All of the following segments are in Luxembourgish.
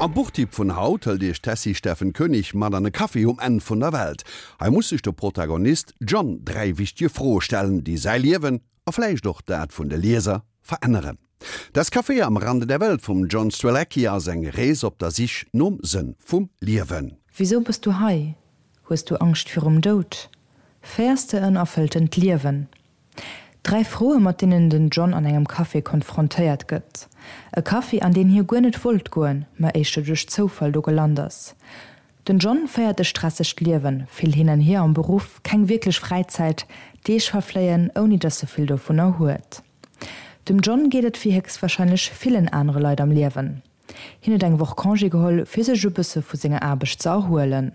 Am Buchtipp vun haut hëlt Iech d'Tessy Steffen Koenig mat an e Café um Enn vun der Welt. Hei muss sech de Protagonist John 3 wichtege Froe stellen, déi säi Liewen, a vläicht och dat vun de Lieser, veränneren. Das Café am Rande der Welt vum John Strelecky ass eng Rees op der Sich nom Sënn vum Liewen. Wisou bass du hei? Hues du Angscht virum Doud? Féiers de en erfëlltent Liewen? Dräi Froe mat deenen den John an engem Café konfrontéiert gëtt. E Café an deen hie guer net wollt goen, ma éischter duerch Zoufall do gelant ass. Den John féiert e stressegt Liewen, vill hin an hier am Beruff, keng wierklech Fräizäit, Deeg verfléien ouni datt e vill dovunner huet. Dem John geet et wéi héchstwarscheinlech villen anere Leit am Liewen. Hien huet eng Woch Congé geholl fir sech e bësse vu senger Aarbecht ze erhuelen.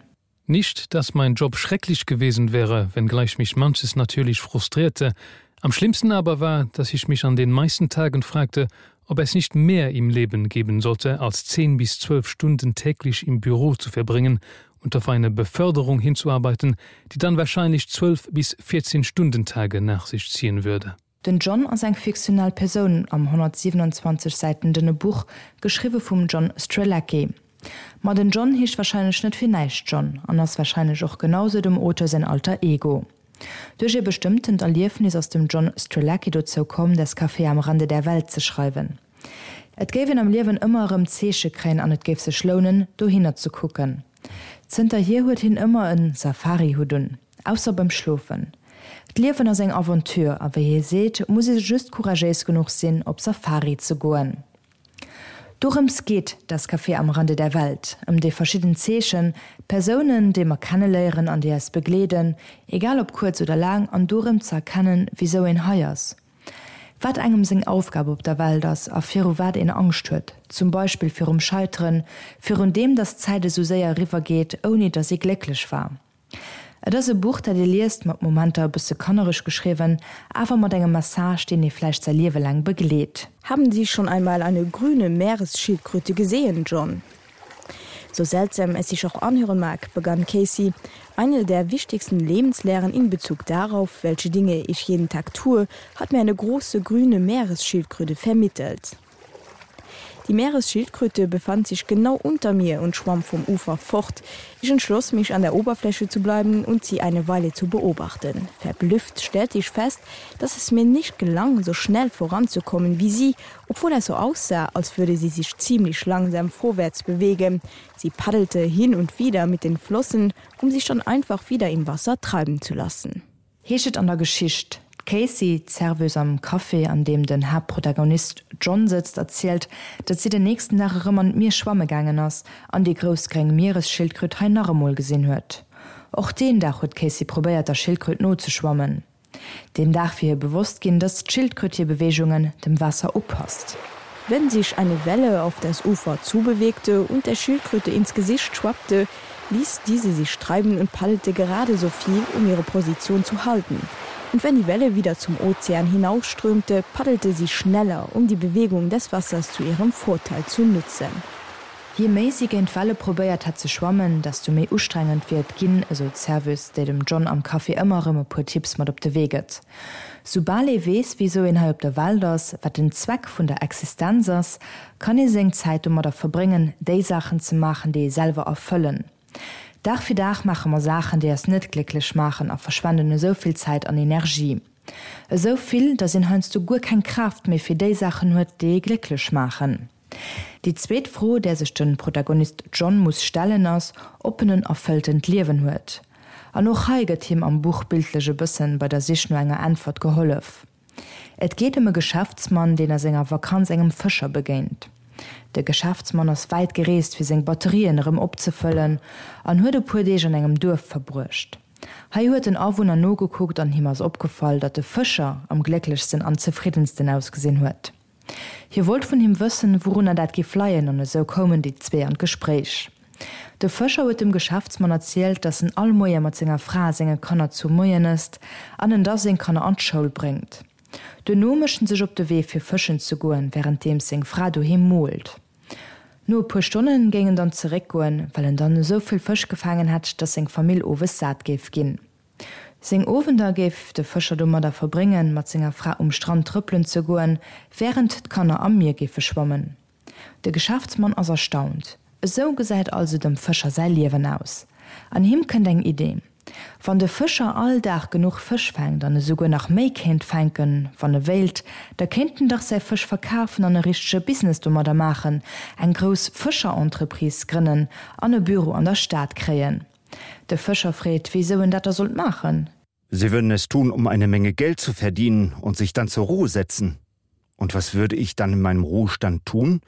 Nicht, dass mein Job schrecklich gewesen wäre, wenngleich mich manches natürlich frustrierte. Am schlimmsten aber war, dass ich mich an den meisten Tagen fragte, ob es nicht mehr im Leben geben sollte, als zehn bis zwölf Stunden täglich im Büro zu verbringen und auf eine Beförderung hinzuarbeiten, die dann wahrscheinlich zwölf bis 14 Stundentage nach sich ziehen würde. Den John ass eng fiktional Persoun am 127 Säiten dënne Buch, geschriwwe vum John Strelecky. Ma den John heescht warscheinlech net fir näischt John an ass warscheinlech och genau sou dem Auteur säin Alter Ego. Duerch ee bestëmmtent Erliefnis ass dem John Strelecky dozou komm, Das Café am Rande der Welt ze schreiwen. Et géif een am Liewen ëmmer erëm Zeeche kréien an et géif sech lounen, dohinner ze kucken. Zënterhier huet hien ëmmer en Safari-Hutt un, ausser beim Schlofen. D'Liewen ass eng Aventure a wéi hie seet, muss ee just couragéis genuch sinn, op Safari ze goen. Dorëms geet Das Café am Rande der Welt, ëm déi verschidden Zeechen, Persounen, déi mer kenneléieren an déi eis begleeden, egal ob kuerz oder laang, an dorëm ze erkennen, wisou een hei ass. Wat engem seng Aufgab op der Welt ass a viru wat een Angscht huet, zum Beispill virum Scheiteren, virun deem, datt d'Zäit esou séier eriwwer geet, ouni datt ee glécklech war. Et ass e Buch, dat ee liest, mat Momenter e bësse kannereg geschriwwen, awer mat engem Message, deen ee vläicht säi Liewe laang begleet. Haben Sie schon einmal eine grüne Meeresschildkröte gesehen, John? So seltsam es sich auch anhören mag, begann Casey, eine der wichtigsten Lebenslehren in Bezug darauf, welche Dinge ich jeden Tag tue, hat mir eine große grüne Meeresschildkröte vermittelt. Die Meeresschildkröte befand sich genau unter mir und schwamm vom Ufer fort. Ich entschloss mich an der Oberfläche zu bleiben und sie eine Weile zu beobachten. Verblüfft stellte ich fest, dass es mir nicht gelang, so schnell voranzukommen wie sie, obwohl es so aussah, als würde sie sich ziemlich langsam vorwärts bewegen. Sie paddelte hin und wieder mit den Flossen, um sich dann einfach wieder im Wasser treiben zu lassen. Heescht et an der Geschicht. D'Casey, d'Serveuse am Café, an deem den Haaptprotagonist John sëtzt, erzielt, datt si den nächsten Dag erëm an d'Mier schwamme gaangen ass an déi grouss gréng Mieresschildkröt hei nach emol gesinn huet. Och deen Dag huet d'Casey probéiert, der Schildkröt nozeschwammen. Deen Dag wier hir bewosst ginn, datt d'Schildkröt hir Beweegungen dem Waasser upasst. Wenn sich eine Welle auf das Ufer zubewegte und der Schildkröte ins Gesicht schwappte, ließ diese sich treiben und paddelte gerade so viel, um ihre Position zu halten. Und wenn die Welle wieder zum Ozean hinausströmte, paddelte sie schneller, um die Bewegung des Wassers zu ihrem Vorteil zu nutzen. Je méi si géint d'Welle probéiert hätt ze schwammen, desto méi ustrengend wier et ginn, esou d'Serveuse, déi dem John am Café ëmmer erëm e puer Tipps mat op de Wee gëtt. Soubal ee weess, wisou een hei op der Welt ass, wat den Zweck vun der Existenz ass, kann ee seng Zäit domadder verbréngen, déi Saachen ze maachen, déi ee selwer erfëllen. Dag fir Dag maache mer Saachen, déi eis net glécklech maachen a verschwenden esou vill Zäit an Energie. Esou vill, datt een heiansdo guer keng Kraaft méi fir déi Saachen huet, déi ee glécklech maachen. Déi zweet Fro, där sech de Protagonist John muss stellen, ass, ob en en erfëlltent Liewen huet. An och hei gëtt him am Buch bildlech e bëssen bei der Sich no enger Äntwert gehollef. Et geet ëm e Geschäftsmann, deen a senger Vakanz engem Fëscher begéint. De Geschäftsmann ass wäit gereest, fir seng Batterien erëm opzefëllen an huet e puer Deeg an engem Duerf verbruecht. Hei huet en Awunner nogekuckt an him ass opgefall, datt de Fëscher am glécklechsten an zefriddensten ausgesinn huet. Hie wollt vun him wëssen, wourunner dat giff leien, an esou koumen déi zwee an d'Gespréich. De Fëscher huet dem Geschäftsmann erzielt, dass en all Moie mat senger Fra a senge Kanner zu Moien ësst an en da seng Kanner an d'Schoul bréngt. Duerno mécht en sech op de Wee fir fëschen ze goen, wärenddeems seng Fra doheem moolt. No e puer Stonne géing en dann zeréckgoen, well en dann esou vill Fësch gefaangen hätt, dass seng Famill owes sat géif ginn. Seng Owender géif de Fëscher domadder verbréngen, mat senger Fra um Strand trëppelen ze goen, wärend d'Kanner am Mier géife schwammen. De Geschäftsmann ass erstaunt. Esou gesäit also dem Fëscher säi Liewen aus. An him kënnt eng Idee. Wann de Fëscher all Dag genuch Fësch fänkt an esouguer nach méi kéint fänken, wann e wéilt, da kéint en dach säi Fësch verkafen an e richtege Business domadder maachen, eng grouss Fëscher-Entreprise grënnen an e Büro an der Stad kréien. De Fëscher freet, wéisou en dat da sollt maachen. Sie würden es tun, um eine Menge Geld zu verdienen und sich dann zur Ruhe setzen. Und was würde ich dann in meinem Ruhestand tun?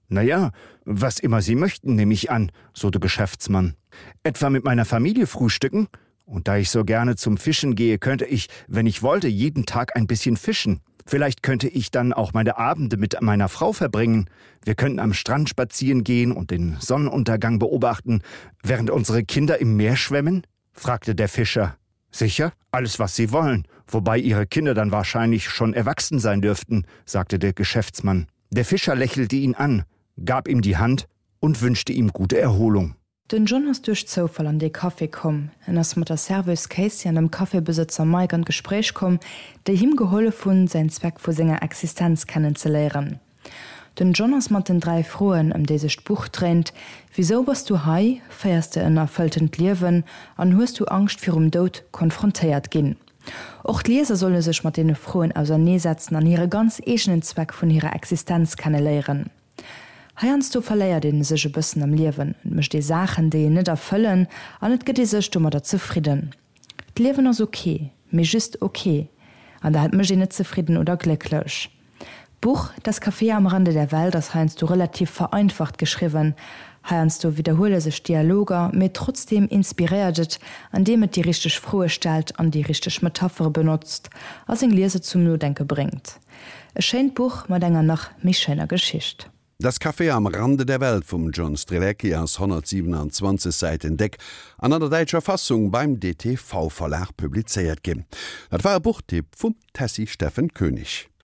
Na ja, was immer Sie möchten, nehme ich an, so der Geschäftsmann. Etwa mit meiner Familie frühstücken? Und da ich so gerne zum Fischen gehe, könnte ich, wenn ich wollte, jeden Tag ein bisschen fischen. Vielleicht könnte ich dann auch meine Abende mit meiner Frau verbringen. Wir könnten am Strand spazieren gehen und den Sonnenuntergang beobachten, während unsere Kinder im Meer schwemmen? fragte der Fischer. Sicher, alles was Sie wollen, wobei Ihre Kinder dann wahrscheinlich schon erwachsen sein dürften, sagte der Geschäftsmann. Der Fischer lächelte ihn an, gab ihm die Hand und wünschte ihm gute Erholung. Den John ass duerch Zoufall an dee Café komm. En ass mat der Serveuse Casey an dem Cafébesëtzer Mike an d'Gespréich komm, déi him gehollef hunn, säin Zweck vu senger Existenz kennenzeléieren. Den John ass mat den 3 Froen, ëm déi sech d'Buch dréint, Wisou bass du hei? Féiers de en erfëlltent Liewen? An hues du Angscht virum Doud? konfrontéiert ginn. Och d'Lieser solle sech mat deene Froen auserneesetzen an hire ganz eegenen Zweck vun hirer Existenz kenneléieren. Heiansdo verléiert ee sech e bëssen am Liewen, et mécht ee Saachen, déi een net erfëllen an et gëtt ee sech domadder zefridden. D'Liewen ass ok, mee just ok, an dat mécht een net zefridden oder glécklech. D'Buch Das Café am Rande der Welt ass heiansdo relativ vereinfacht geschriwwen, heiansdo widderhuele sech Dialoger, mee trotzdeem inspiréiert et, andeem et déi richteg Froe stellt an déi richteg Metaphere benotzt a seng Lieser zum Nodenke bréngt. E schéint Buch mat enger nach méi schéiner Geschicht. Das Café am Rande der Welt vum John Strelecky ass 127 Säiten déck an an der däitscher Fassung beim dtv Verlag publizéiert ginn. Dat war e Buchtipp vum Tessy Steffen Koenig.